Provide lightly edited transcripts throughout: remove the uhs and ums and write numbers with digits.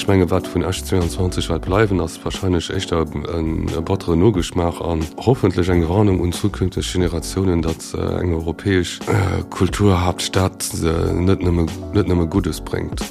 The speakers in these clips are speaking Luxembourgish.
Ech menge wat vun Esch 22 wäert bleiwen, ass wahrscheinlech éischter e batteren Nogeschmaach an hoffentlech eng Warnung un zukünfteg Generatiounen, datt eng europäesch Kulturhaaptstad net nëmme net nëmme Guddes bréngt.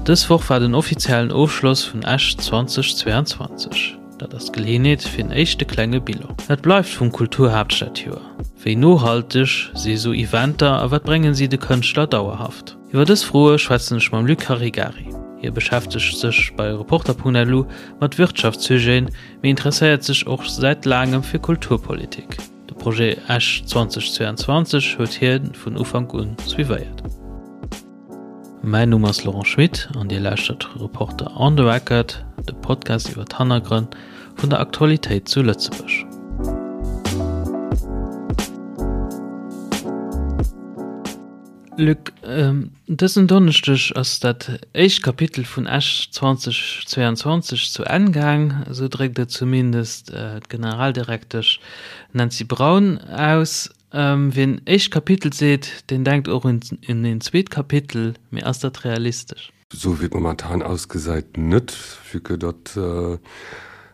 Dës Woch war den offiziellen Ofschloss vun Esch 2022. Dat ass d'Geleeënheet fir en éischte klenge Bilan. Wat bleift vum Kulturhaaptstadjoer? Wéi nohalteg si esou Eventer a wat bréngen si de Kënschtler dauerhaft? Iwwer dës Froe schwätzen ech mam Luc Caregari. Hie beschäftegt sech bei Reporter.lu mat Wirtschaftssujeten, mee interesséiert sech och säit laangem fir Kulturpolitik. De Projet Esch 2022 huet hie vun Ufank un suivéiert. Mäin Numm ass Laurent Schmit an Dir lauschtert Reporter on the Record, de Podcast iwwer d'Hannergrënn vun der Aktualitéit zu Lëtzebuerg. Luc, dësen Donneschdeg ass dat éischt Kapitel vun Esch 2022 zu Enn gaang, esou dréckt et zumindest d'Generaldirektesch Nancy Braun aus. Wien éischt Kapitel seet, deen denkt och un een zweet Kapitel, mee ass dat realistesch? Esou wéi et momentan ausgesäit net, vue que datt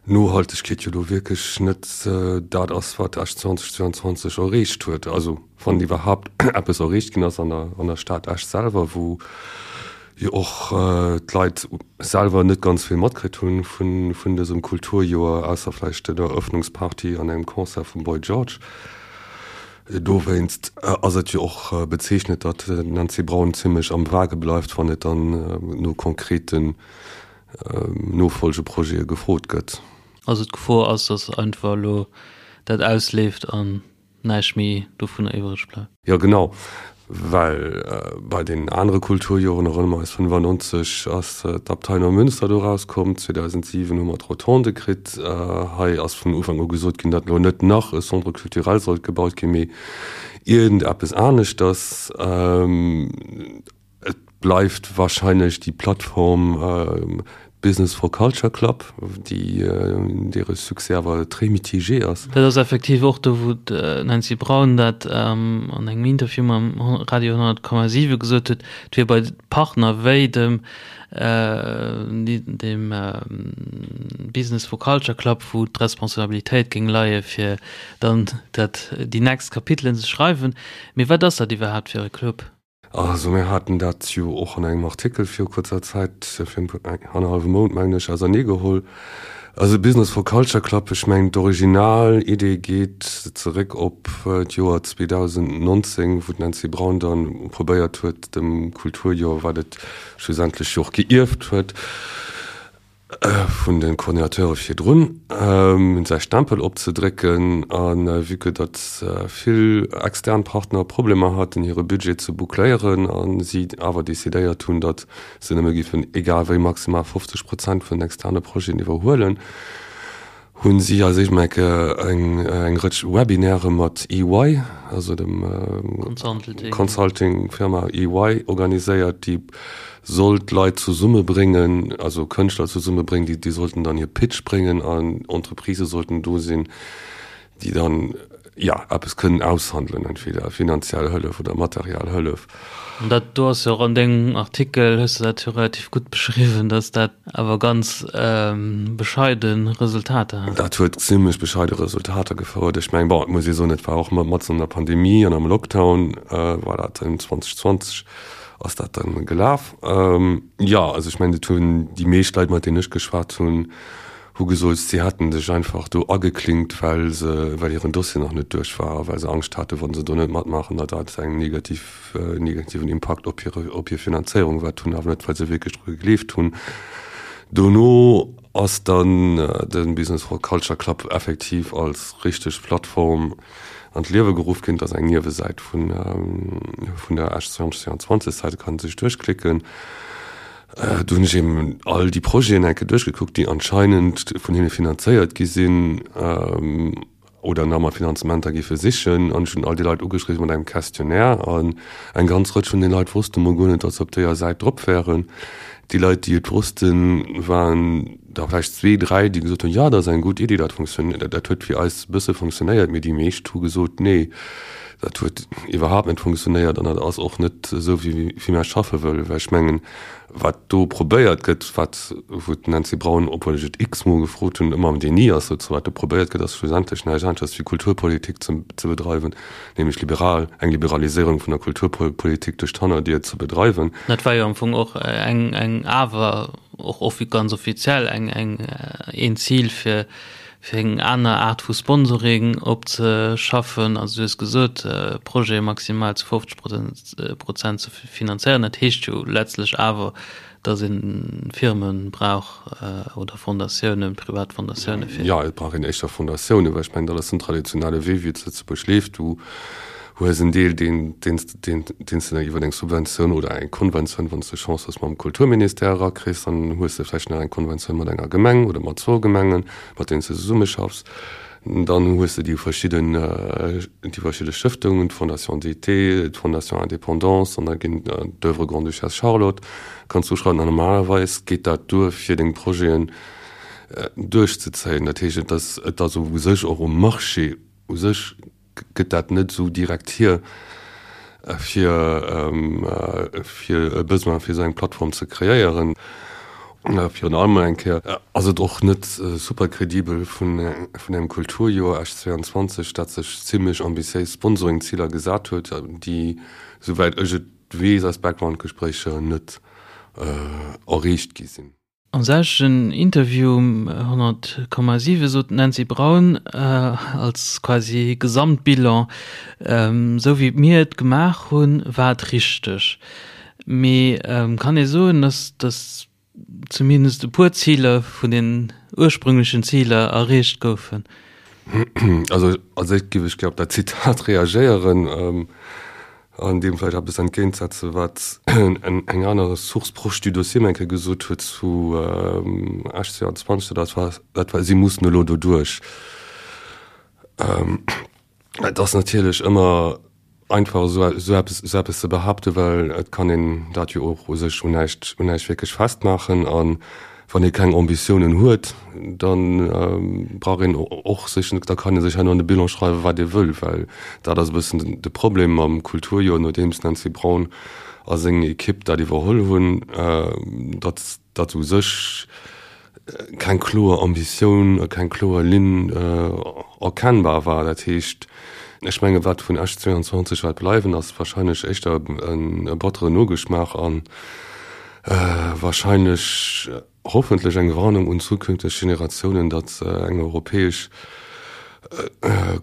Nohaltegkeet jo do wierklech net dat ass, wat Esch 2022 erreecht huet. Also wann iwwerhaapt eppes erreecht ginn ass an der Stad Esch selwer, wou jo och d'Leit selwer net ganz vill matkritt hunn vun dësem Kulturjoer, ausser vläicht der Eröffnungsparty an engem Concert vum Boy George. Dowéinst ass et jo och bezeechnend, datt d'Nancy Braun zimmlech am Vage bleift, wann et dann no konkreten Nofolgeprojete gefrot gëtt. Also d'Gefor ass, datt einfach elo dat ausleeft an näischt méi dovunner iwwreg bleift. Jo genau, well bei den anere Kulturjoren, erënnere mer eis, 95 ass d'Abtei Neumünster do erauskomm, 2007 hu mer d'Rotonde kritt. Hei ass vun Ufank u gesot ginn, datt elo net nach e Centre culturel sollt gebaut ginn, mee iergendeppes aneschters. Et bleift wahrscheinlech déi Plattform Business for Culture Club, déi deere Succès awer très mitigé ass. Dat ass effektiv och do, wou d'Nancy Braun dat an engem Interview mam Radio 100,7 gesot huet, et wier bei Partner wéi dem dem Business for Culture Club, wou d'Responsabilitéit géing leie fir dann dat déi nächst Kapitelen ze schreiwen. Mee wat ass dat iwwerhaapt fir e Club? Also mir haten dat jo och an engem Artikel viru kuerzer Zäit, virun annerhallwem Mount mengen ech, auserneegeholl. Also Business for Culture Club, ech mengen d'Originalidee geet zeréck op d'Joer 2019, wou d'Nancy Braun dann probéiert huet, dem Kulturjoer, wat et schlussendlech jo och geierft huet, vun de Coordinateure virdrun, säi Stempel opzedrécken. A vue que datt vill extern Partner Problemer haten, hire Budget ze boucléieren a si awer decidéiert hunn, datt se nëmme géifen egal wéi maximal 50 Prozent vun den externe Projeten iwwerhuelen, hunn si als éischt mol eng eng Rëtsch Webinaire mat EY, also dem Consulting-Firma EY organiséiert, déi sollt Leit zesummebréngen, also Kënschtler zesummebréngen, déi déi sollten dann hir Pitch bréngen an Entreprisë sollten do sinn, déi dann, jo, eppes kënnen aushandelen, entweder finanziell Hëllef oder materiell Hëllef. An dat do ass jo och an dengem Artikel, hues de dat jo relativ gutt beschriwwen, dass dat awer ganz bescheide Resultater hat. Dat huet zimlech bescheide Resultater gefouert. Ech mengen, bon, et muss ee soen, et war och matzen an der Pandemie an am Lockdown war dat 2020 ass dat dann gelaf. Jo, also ech mengen, et hunn déi meescht Leit, mat deenen ech geschwat hunn, hu gesot, si hätten sech einfach do ageklinkt, well se, well hiren Dossier nach net duerch war a well se Angscht haten, wa se do net matmaachen, datt dat eng negativ, negativen Impakt op hire, op hir Finanzéierung wäert hunn, awer net, well se wierklech dru gegleeft hunn. Dono ass dann de Business for Culture Club effektiv als richteg Plattform an d'Liewe geruff ginn. Dat ass eng Niewesäit vun, vun der Esch 2022 Säit, do kann ee sech duerchklicken. Do hunn ech eben all déi Projeten eng Kéier duerchgekuckt, déi anscheinend vun hinne finanzéiert gi sinn oder nach mat Finanzementer géife sichen. An ech hunn all déi Leit ugeschriwwen mat engem Questionnaire. An eng ganz Rëtsch vun den Leit wosste mol guer net, datt se op deeër Säit drop wären. Déi Leit, déi et wossten, waren der vläicht zwee, dräi, déi gesot hunn, jo, dat ass eng gutt Iddi, dat funktioniert, dat huet fir eis e bësse funktionéiert. Mee déi meescht hu gesot, nee. Dat huet iwwerhaapt net funktionéiert an dat ass och net esou, wéi wéi mär schaffe wëllen. Well ech mengen, wat do probéiert gëtt, wat wou d'Nancy Braun, obwuel ech et x-mol gefrot hunn, ëmmer am Déni ass dozou, wat do probéiert gëtt, ass schlussendlech näischt aneschters wéi Kulturpolitik ze ze bedreiwen, nämlech liberal, eng Liberaliséierung vun der Kulturpolitik duerch d'Hannerdier ze bedreiwen. Dat war jo am Fong och eng eng awer och offi ganz offiziell eng eng een Zil fir fir eng aner Aart vu Sponsoring opzeschaffen. Also du hues gesot, Projete maximal zu 50 Prozent ze finanzéieren. Dat heescht jo letztlech awer, datt ee Firme brauch oder Fondatiounen, privat Fondatiounen fir. Jo, et brauch een éischter Fondatiounen, well ech mengen, dat ass den traditionelle Wee, wéi et zu Lëtzebuerg leeft. Du hues en Deel, deen, deen, deen, deen s de dann iwwer eng Subventioun oder eng Konventioun, wann s de Chance hues, mam Kulturministère erakriss. Dann hues de vläicht nach eng Konventioun mat enger Gemeng oder mat zwou Gemengen. mat deenen s de zesummeschaffs. Dann hues de déi verschidden, déi verschidde Stëftungen, d'Fondation d'été, d'Fondation Indépendance an da ginn d'Oeuvre Grande-Duchesse Charlotte kanns du uschreiwen. An normalerweis geet dat duer fir deng Projeten duerchzezéien. Dat heescht, et ass, et ass u sech och um Marché u sech gëtt dat net esou direkt hier, fir fir e Besoin fir esou eng Plattform ze kreéieren. Virun allem eng Kéier ass et och net super kredibel vun vun engem Kulturjoer Esch 22, dat sech zimlech ambitiéis Sponsoringziler gesat huet, déi, souwäit ech et weess aus Backgroundgespréicher, net erreecht gi sinn. Am selwechten Interview um 100,7 sot d'Nancy Braun als quasi Gesamtbilan, Esou wéi mir et gemaach hunn, war et richteg. Mee kann ee soen, datt datt zumindest e puer Ziler vun den ursprünglechen Ziler erreecht goufen? Also als éischt géif ech gär op dat Zitat reagéieren. An deem vläicht eppes entgéintsetzen, wat eng aner Source proche du dossier mir eng Kéier gesot huet zu Esch 22, dat war, dat war, si mussen elo doduerch. Et ass natierlech ëmmer einfach, esou eppes, esou eppes ze behaapten, well et kann een dat jo och u sech un näischt, un näischt wierklech festmaachen. An Wann ee keng Ambitiounen huet, da brauch een och sech net, da kann ee sech herno an de Bilan schreiwen, wat ee wëll, well dat ass e bëssen de Problem mam Kulturjoer, nodeems d'Nancy Braun a seng Ekipp dat iwwerholl hunn, datt datt u sech keng kloer Ambitioun a keng kloer Linn erkennbar war. Dat heescht, ech menge wat vun Esch 22 wäert bleiwen, ass wahrscheinlech éischter e batteren Nogeschmaach an, Wahrscheinlech, hoffentlech eng Warnung un zukünfteg Generatiounen, datt eng europäesch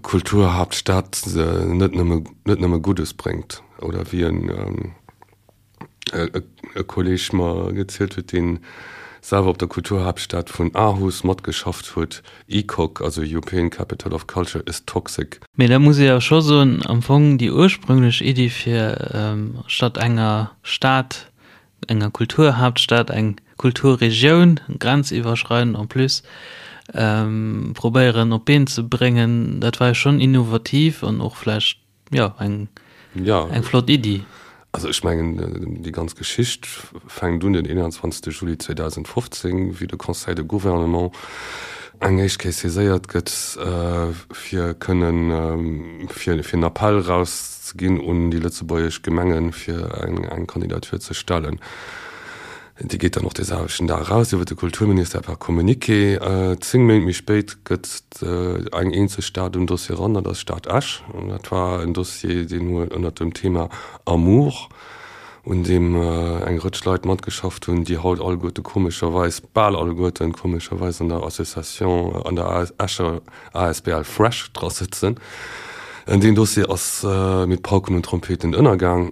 Kulturhaaptstad net nëmme, net nëmme Guddes bréngt. Oder wéi en e Kolleg mer gezielt huet, dee selwer op der Kulturhaaptstad vun Aarhus matgeschafft huet, ECOC, also European Capital of Culture is toxic. Mee da muss ee jo scho soen, am Fong déi ursprünglech Iddi fir statt enger Stad, enger Kulturhaaptstad, eng Kulturregioun, grenziwwerschreidend en plus, probéieren op d'Been ze bréngen, dat war jo schonn innovativ an och vläicht Jo, eng, ja. eng flott Iddi. Also ech mengen, déi ganz Geschicht fänkt un den 21. Juli 2015, wéi de Conseil de Gouvernement eng éischt Kéier saiséiert gëtt, fir kënnen, fir en Appell erauszeginn un déi lëtzebuergesch Gemengen, fir eng Kandidatur ze stellen. Déi geet dann och dee selwechten Dag eraus iwwer de Kulturministère per Communiqué. 10 Méint méi spéit gëtt eng eenzeg Stad um Dossier eran, dat ass d'Stad Esch. An dat war en Dossier, deen huet ënnert dem Thema Amour, un deem eng Rëtsch Leit matgeschafft hunn, déi haut alleguerte komescherweis, bal alleguerten komescherweis an der Association, an der Escher asbl Fresh dra sëtzen. Deen Dossier ass mit Pauken und Trompeten ënnergaang.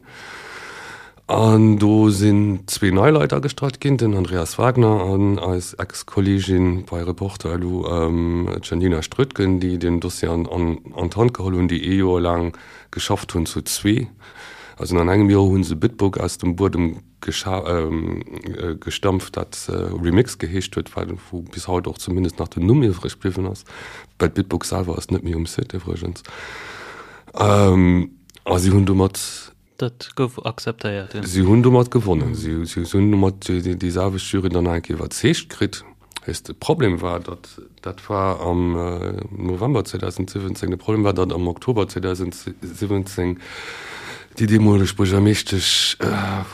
An do sinn zwee nei Leit agestallt ginn, den Andreas Wagner an eis Ex-Kolleegin bei Reporter elo, d'Janina Strötgen, déi den Dossier an d'Hand geholl hunn, déi ee Joer laang geschafft hunn zu zwee. Also an engem Joer hu se Bitburg aus dem Buedem gestampft, dat Remix geheescht huet, wou bis haut och zumindest nach den Numm iwwreg bliwwen ass, well d'Bitburg selwer ass net méi um Site iwwregens. A si hunn domat Dat gouf akzeptéiert, jo. Si hunn domat gewonnen. Si hunn domat déi selwecht Jury dann nach eng Kéier iwwerzeegt kritt. Weess, de Problem war, datt, dat war am November 2017, de Problem war, datt am Oktober 2017 déi deemoleg Buergermeeschtesch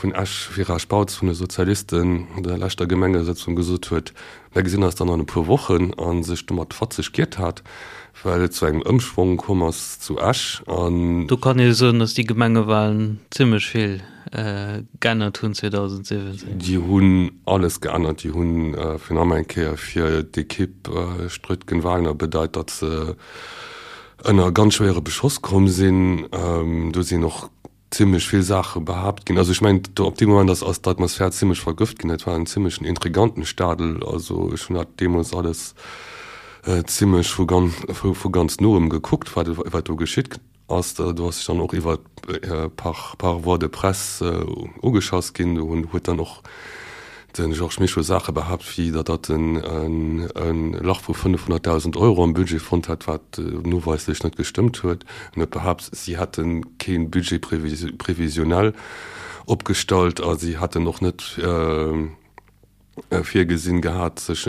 vun Esch, Vera Spautz vun de Sozialisten, an der leschter Gemengesëtzung gesot huet, Mir gesinn eis dann an e puer Wochen, a sech domat fatzeg giert hat, well et zu engem Ëmschwong komm ass zu Esch. An. Do kann ee soen, datt déi Gemengewalen zimmlech vill geännert hunn 2017. Déi hunn alles geännert. Déi hunn fir nach eng Kéier fir d'Ekipp Strötgen-Wagner bedeit, datt se ënner ganz schwéiere Beschoss komm sinn. Do sinn och zimmlech vill Saache behaapt ginn. Also ech mengen, do op deem Moment ass ass d'Atmosphär zimmlech vergëft ginn. Et war en zimmlechen Intrigantenstadel. Also ech hunn dat deemools alles zimmlech vu ganz vu ganz noem gekuckt, wat wat do geschitt ass. Do ass sech dann och iwwer par par voie de presse ugeschass ginn. Do hunn huet dann och De Georges Mischo Saache behaapt, wéi datt datt en e Lach vu 500.000 Euro am Budget fonnt hätt, wat noweislech net gestëmmt huet. En huet behaapt, si hätte kee Budget prévisionnel opgestallt a si hätten och net virgesinn gehat, sech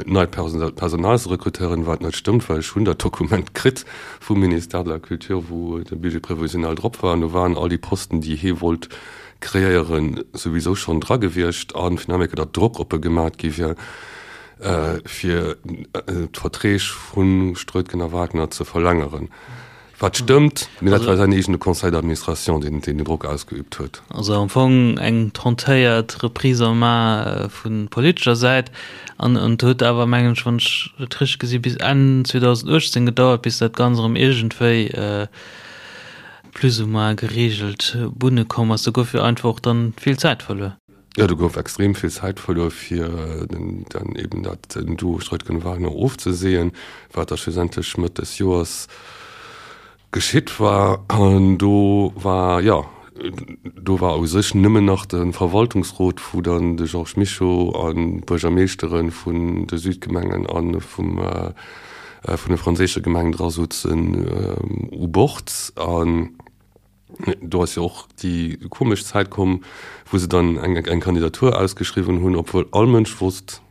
neit Personal ze rekrutéieren, wat net stëmmt, well ech hunn dat Dokument kritt vum Ministère de la Culture, wou de Budget prévisionnel drop war an do waren all déi Posten, déi hie wollt kreéieren, souwisou schonn dra gewiescht a finalement datt Drock op e gemat gi wier, fir d'Verträg vu Strötgen a Wagner ze verlängeren. Wat stëmmt, mee dat war säin eegene Conseil d'administration, deen deen Drock ausgeübt huet. Also am Fong eng tentéiert Reprise en main vu politescher Säit. An et huet awer, mengen ech, wann ech et richteg gesi, bis Enn 2018 gedauert, bis dat Ganzt erëm iergendwéi plus ou moins geregelt Bunne komm ass. Do gouf jo einfach och dann vill Zäit verluer. Jo, do gouf extrem vill Zäit verluer, fir dann eben dat Duo Streutgen-Wagner ofzeseeën, wat da schlussendlech Mëtt des Joers geschitt war. An do war, jo, do war u sech nëmmen nach de Verwaltungsrot, wou dann de Georges Mischo an d'Buergermeeschtere vun de Südgemengen a vum vun de franséische Gemengen dra souzen u Bord. An do ass jo och déi komesch Zäit komm, wou se dann eng eng Kandidatur ausgeschriwwen hunn, obwuel all Mënsch wosst,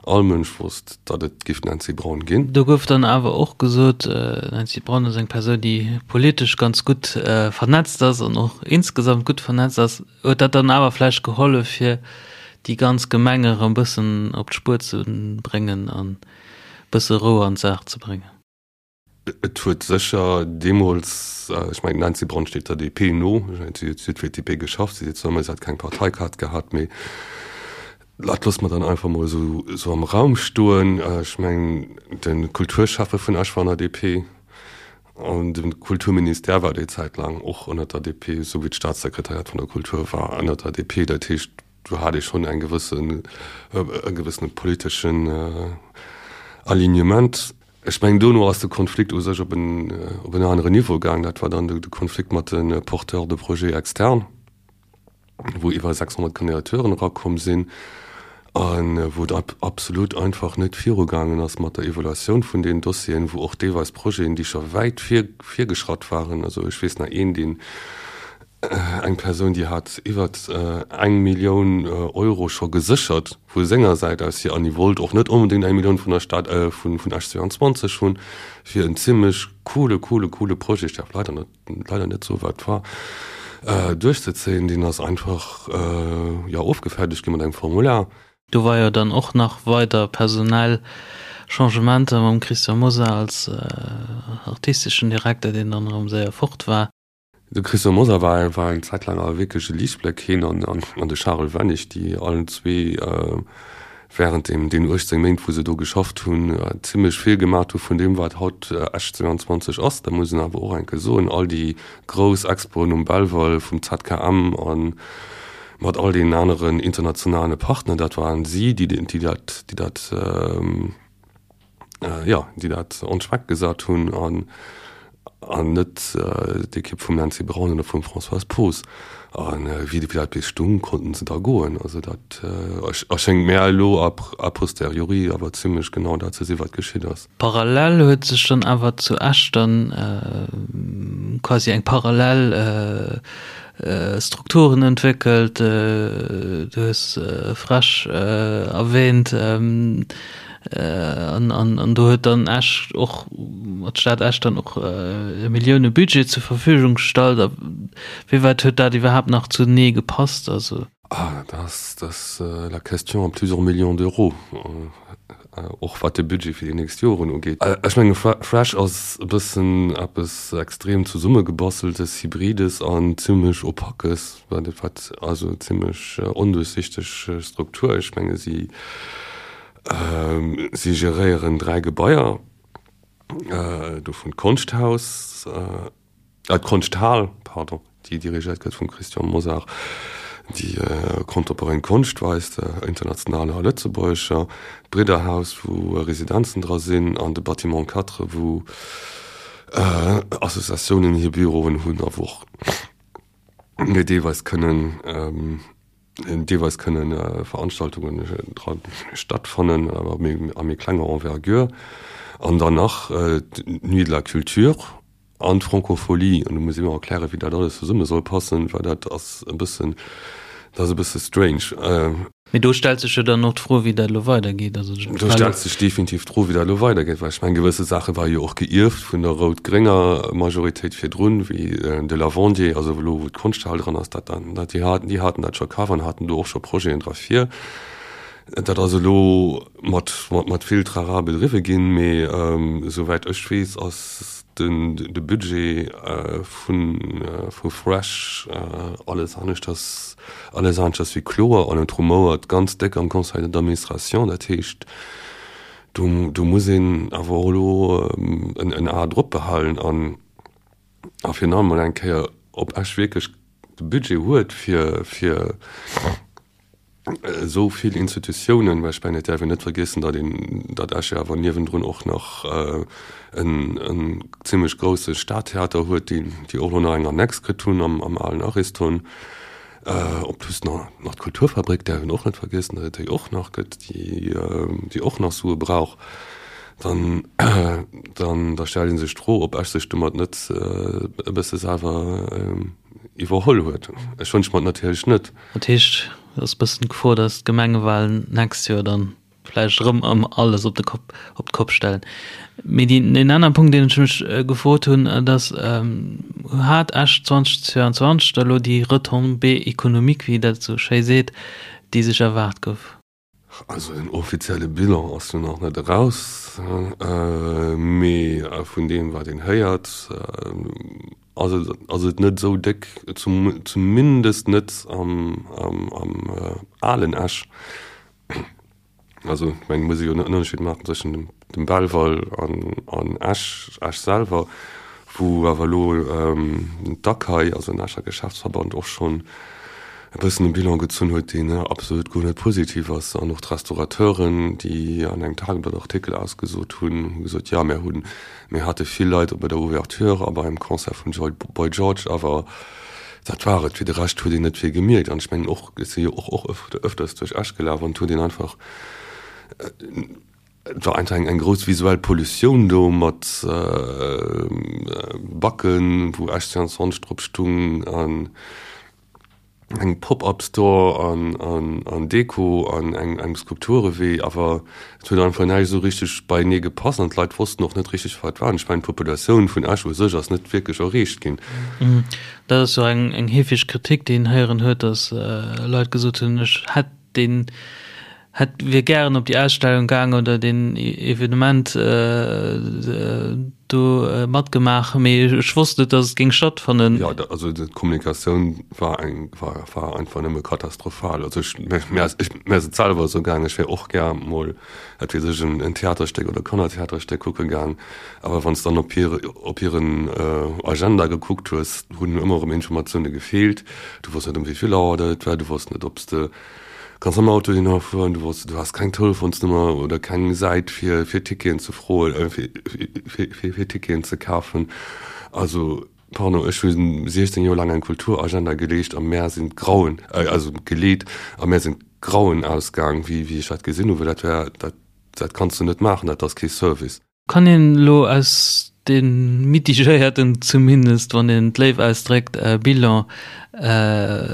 all Mënsch wosst, datt et géif d'Nancy Braun ginn. Do gouf dann awer och gesot, d'Nancy Braun ass eng Persoun, déi politesch ganz gutt vernetzt ass an och insgesamt gutt vernetzt ass. Huet dat dann awer vläicht gehollef, fir déi ganz Gemeng erëm e bëssen op d'Spuer ze bréngen an bësse Rou an d'Saach ze bréngen. Et huet sécher deemools, ech mengen d'Nancy Braun steet der DP no, si huet fir d'DP geschafft, si seet zwar ëmmer, si hätt keng Parteikaart gehat, mee dat loosse mer dann einfach mol esou am Raum stoen. Ech mengen de Kulturschäffe vun Esch war an der DP an de Kulturministère war déi Zäit laang och ënner der DP, esou wéi d'Staatssekretariat vun der Kultur war ënner der DP. Dat heescht, Do hat ee schonn eng gewëssen, e gewëssene politeschen Alignement. Ech mengen, dono ass de Konflikt u sech op en, op en aneren Niveau gaang. Dat war dann de Konflikt mat de Porteurs de projets externes, wou iwwer 600 Kandidaturen erakomm sinn a wou et absolut einfach net virugaangen ass mat der Evaluatioun vun deenen Dossieren, wou och deelweis Projeten, déi scho wäit vir, virgeschratt waren, also ech weess nach een, deen Eng Persoun, déi hat iwwert eng Millioun Euro scho geséchert vu senger Säit aus hier an déi wollt och net onbedéngt eng Millioun vun der Stad, vun Esch 22 hunn, fir en zimlech coole, coole, coole Projet, ech däerf leider net, leider net soen, wat et war, duerchzezéien. Deen ass einfach, jo, ofgefäerdegt gi mat engem Formular. Do war jo dann och nach weider personell Changementer mam Christian Mosar als artisteschen Direkter, deen dann erëm séier fort war. De Christian Mosar war war eng Zäit laang awer wierklech e Liichtbléck, hien an an de Charel Wennig, déi allen zwee wärend deem deenen 18 Méint, wou se do geschafft hunn, zimmlech vill gemat hu vun deem, wat haut Esch 22 ass. Dat muss een awer och eng Kéier soen, all déi grouss Expoen um Belval vum ZKM a mat all deenen aneren internationale Partner, dat waren si, déi déi dat déi dat jo, déi dat on track gesat hunn an an net d'Ekipp vum Nancy Braun oder vum Françoise Poos. A wéi dat bis stung, konnten se da goen. Also dat erschéngt mär elo a posteriori awer zimlech genau dat ze sinn, wat geschitt ass. Parallel huet sech dann awer zu Esch dann quasi eng parallel Strukturen entwéckelt. Du hues FrEsch erwähnt. An, an, an do huet dann Esch och, d'Stad Esch dann och e Millioune-Budget zur Verfügung gestallt. A wéi wäit huet dat iwwerhaapt nach zunee gepasst? Also. Ah, dat ass, dat ass la question à plusieurs millions d'euros, och wat de Budget fir déi nächst Joren ugeet. Ech menge FrEsch ass e bëssen eppes extrem Zesummegebasteltes, Hybrides an zimlech Opaques, wat, also zimlech onduerchsichteg Struktur. Ech menge si, si geréieren 3 Gebaier, dovun d'Konschthaus, D'Konschthal, pardon, déi dirigéiert gëtt vum Christian Mosar, déi contemporain Konscht weist, internationaler a lëtzebuergescher, d'Bridderhaus, wou Residenzen dra sinn, an de Bâtiment 4, wou Associatiounen hir Büroen hunn a wou och deelweis kënnen deelweis kënnen Veranstaltungen dra stattfannen, awer a méi klenger Envergure. An dann nach d'Nuit de la Culture an d'Francophonie. An do muss ee mer erklären, wéi dat alles zesumme soll passen, well dat ass e bëssen, dat ass e bësse strange. Mee do stellt sech jo dann och d'Fro, wéi dat elo weidergeet. Also do stellt sech definitiv d'Fro, wéi dat elo weidergeet, well ech mengen, gewësse Saache ware jo och geierft vun der rout-grénger Majoritéit virdrun, wéi de Lavandier, also elo wou d'Konschthal dran ass, dat dann, dat déi haten, déi haten dat scho kaf an haten do och scho Projeten dra vir. Dat ass elo mat, mat vill Trara bedriwwe ginn, mee esouwäit ech weess, ass den de Budget vu vu Fresh alles aneschters alles aneschters wéi kloer an et rumouert ganz déck am Conseil d'administration. Dat heescht, do do muss een awer och elo en en A drop behalen an a virun allem mol eng Kéier, ob Esch wierklech de Budget huet fir fir esou vill Institutiounen, well ech mengen, et däerf een net vergiessen, datt een, datt Esch jo awer niewendrun och nach en, en zimlech grousse Stadtheater huet, déi, déi och elo nach eng Annex kritt hunn am, am alen Ariston. En plus nach, nach d'Kulturfabrik däerf een och net vergiessen, datt et déi och nach gëtt, déi, déi och nach Sue brauch. Dann, dann, da stellt ee sech d'Fro, ob Esch sech domat net e bësse selwer iwwerholl huet. Ech wënsche mer et natierlech net. Dat heescht, et ass e bëssen d'Gefor, datt d'Gemengewalen d'nächst Joer dann vläicht erëm ëm alles op de Kopp, op d'Kopp stellen. Mee déi, deen anere Punkt, deen ech mech gefrot hunn, dat ass, Hat Esch 2022 da lo déi Retombée économique, wéi dat esou schéi seet, déi sech erwaart gouf? Also den offizielle Bilan ass jo nach net eraus, mee vun deem wat een héiert, ass et ass et net esou déck, zumindest net am alen Esch. Also ech mengen, et muss ee jo en Ënnerscheed maachen tëschent dem Belval an Esch, Esch selwer, wou awer elo d'ACAI, also den Escher Geschäftsverband, och schonn e bëssen e Bilan gezunn huet, deen absolut guer net positiv ass. An och d'Restaurateuren, déi an engem Tageblatt-Artikel ausgesot hunn, hu gesot, jo, mir hunn, mir hate vill Leit bei der Ouverture a beim Concert vum Boy George, awer dat war et. Fir de Rescht huet een net vill gemierkt. An ech mengen och, ech si jo och och ëfters duerch Esch gelaf an et huet een einfach, Et war einfach eng grouss visuell Pollutioun do mat Backen, wou Esch 22 drop stung an engem Pop-up Store an Deko an engem Skulpturewee. Awer et huet einfach näischt esou richteg beienee gepasst an d'Leit wossten och net richteg, wat war. An ech mengen, d'Populatioun vun Esch u sech ass net wierklech erreecht ginn. Dat ass jo eng heefeg Kritik, déi een héieren huet, datt Leit gesot hunn, ech hätt deen hätt wier gären op déi Ausstellung gaang oder deen Evenement do matgemaach, mee ech wosst net, datt et géing stattfannen. Jo, also d'Kommunikatioun war eng, war, war einfach nëmme katastrophal. Also ech, mir ass, ech, mir ass et selwer esou gaang, ech wär och gär mol, wat weess ech, en, en Theaterstéck oder Kannertheaterstéck kucke gaang, awer wann s dann op hir, op hiren Agenda gekuckt hues, hunn ëmmer erëm Informatioune gefeelt. Du wosst net, ëm wéi vill Auer dat et war, du wosst net, ob s de Kanns mam Auto hinner fueren, du wosst, du has keng Telefonsnummer oder keng Säit fir fir Ticketen ze froen, äh, fir fir fir fir Ticketen ze kafen. Also, pardon, ech hu 16 Joer laang eng Kulturagenda geleescht a mär sinn d'Grauen, äh, also geleet a mär sinn d'Grauen ausgaang, wéi wéi ech dat gesinn hu, well dat war, dat dat kanns du net maachen, dat ass kee Service. Kann een elo aus deem mitigéierten, zumindest wann een et léif ausdréckt, Bilan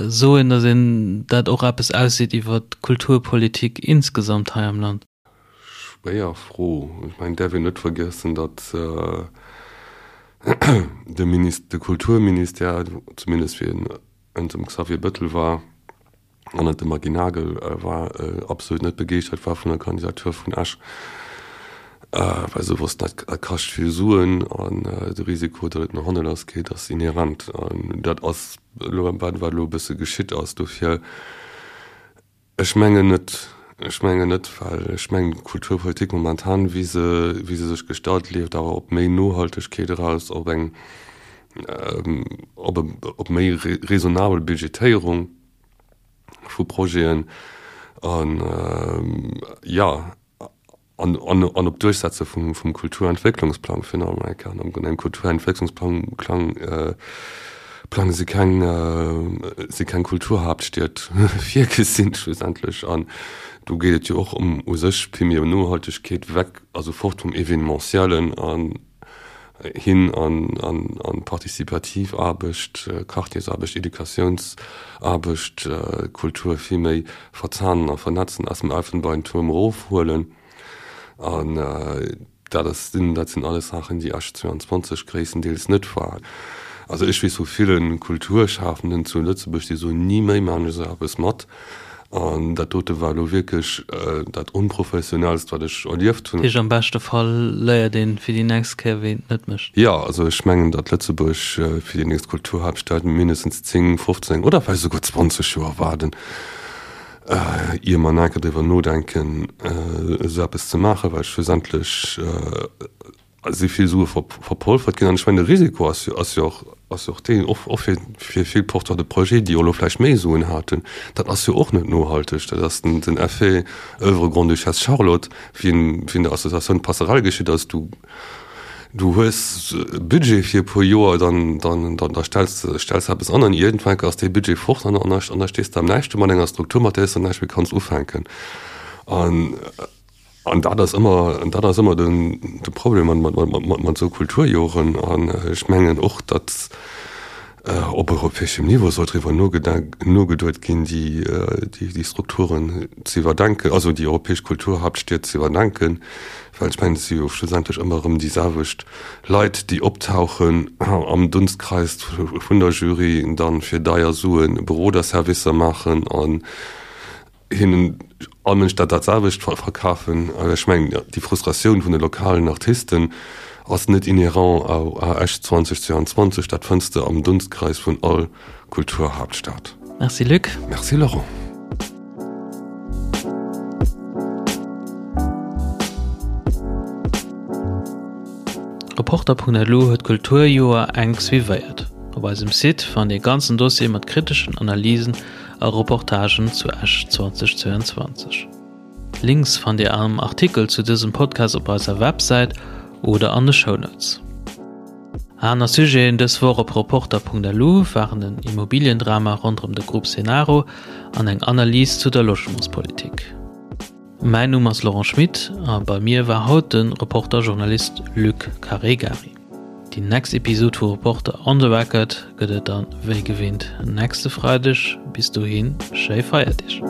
soen, datt een dat och eppes ausseet iwwer d'Kulturpolitik insgesamt hei am Land? schwéier Fro. Ech mengen, et däerf een net vergiessen, datt de Minis-, de Kulturministère, zumindest wéi en ënner dem Xavier Bettel war an ënner dem Maggy Nagel war, absolut net begeeschtert war vun der Kandidatur vun Esch, well se wossten, dat kascht vill Suen an de Risiko, datt et no hanne lass geet, ass inhärent. An dat ass elo, wat elo e bësse geschitt ass. Dofir. Ech mengen net. Ech mengen net, well ech mengen, d'Kulturpolitik momentan, wéi se, wéi se sech gestalt, leeft awer op méi Nohaltegkeet eraus, op eng, op e, op méi raisonnabel Budgetéierung vu Projeten an, jo. An op d'Duerchsetze vum Kulturentwécklungsplang finalement eng Kéier. An engem Kulturentwécklungsplang Plang si keng si keng Kulturhaaptstied virgesinn schlussendlech. An do geet et jo och ëm u sech vill méi ëm Nohaltegkeet, weg, also fort vum Evenementiellen an hin an participativ Aarbecht, Quartiersaarbecht, Educatiounsaarbecht, Kultur vill méi verzahnen a vernetzen, aus dem Elfenbeintuerm erofhuelen. An dat ass, dat sinn alles Saachen, déi Esch 22 gréisstendeels net war. Also ech weess vu ville Kulturschafenden zu Lëtzebuerg, déi soen, ni méi maachen ech esou eppes mat. An dat dote war elo wierklech dat Onprofessionellst, wat ech erlieft hunn. Heescht, am beschte Fall léiert een fir déi nächst Kéier, wéi een et net mécht. Jo, also ech mengen, datt Lëtzebuerg fir déi nächst Kulturhaaptstad mindestens 10, 15 oder vläicht esouguer 20 Joer waarden, ier mer nach eng Kéier driwwer nodenken, esou eppes ze maachen, well schlussendlech si vill Sue verpolfert ginn. An ech mengen, de Risiko ass jo, ass jo och, ass jo och deen, och, och fir, fir vill Porteurs de projets, déi jo elo vläicht méi Suen haten, dat ass jo och net nohalteg. Dat ass den, den Effet Oeuvre Grande-Duchesse Charlotte, wéi en, wéi en der Associatioun Passerelle geschitt ass. Du, du hues e Budget fir e puer Joer, dann, dann, dann, da stells de, stells de eppes an an iergendwann ass dee Budget fort an, an da, an da stees de am Näischt do mat enger Struktur, mat där s de näischt méi kanns ufänken. An. An dat ass ëmmer, dat ass ëmmer den, de Problem mat, mat, mat, mat esou Kulturjoren. An ech mengen och, datt op europäeschem Niveau soll driwwer nogeduet ginn, déi, déi, déi Strukturen ze iwwerdenken, also déi europäesch Kulturhaaptstied ze iwwerdenken, well ech mengen, et si jo schlussendlech ëmmer erëm déi selwecht Leit, déi optauchen am Dunstkreis vun der Jury, dann fir deier Sue Beroderservicer maachen an hinnen all Mënsch dat dat selwecht verkafen. Ech mengen, déi Frustratioun vun de lokalen Artisten ass net inhérent à Esch 2022, dat fënns de am Dunstkreis vun all Kulturhaaptstad. Merci Luc. Merci Laurent. Reporter.lu huet d'Kulturjoer enk suivéiert. Op eisem Site fannt Dir e ganzen Dossier mat kriteschen Analysen a Reportagen zu Esch 2022. D'Links fannt Dir am Artikel zu dësem Podcast op eiser Websäit oder an de Shownotes. Aner Sujeten dës Woch op Reporter.lu waren den Immobiliendrama ronderëm de Groupe Cenaro an eng Analys zu der Logementspolitik. Mäin Numm ass Laurent Schmit a bei mir war haut de Reporter-Journalist Luc Caregari. Déi next Episod vu Reporter on the Record gëtt et dann wéi gewinnt nächste Freideg. Bis dohin, schéi Feierdeeg!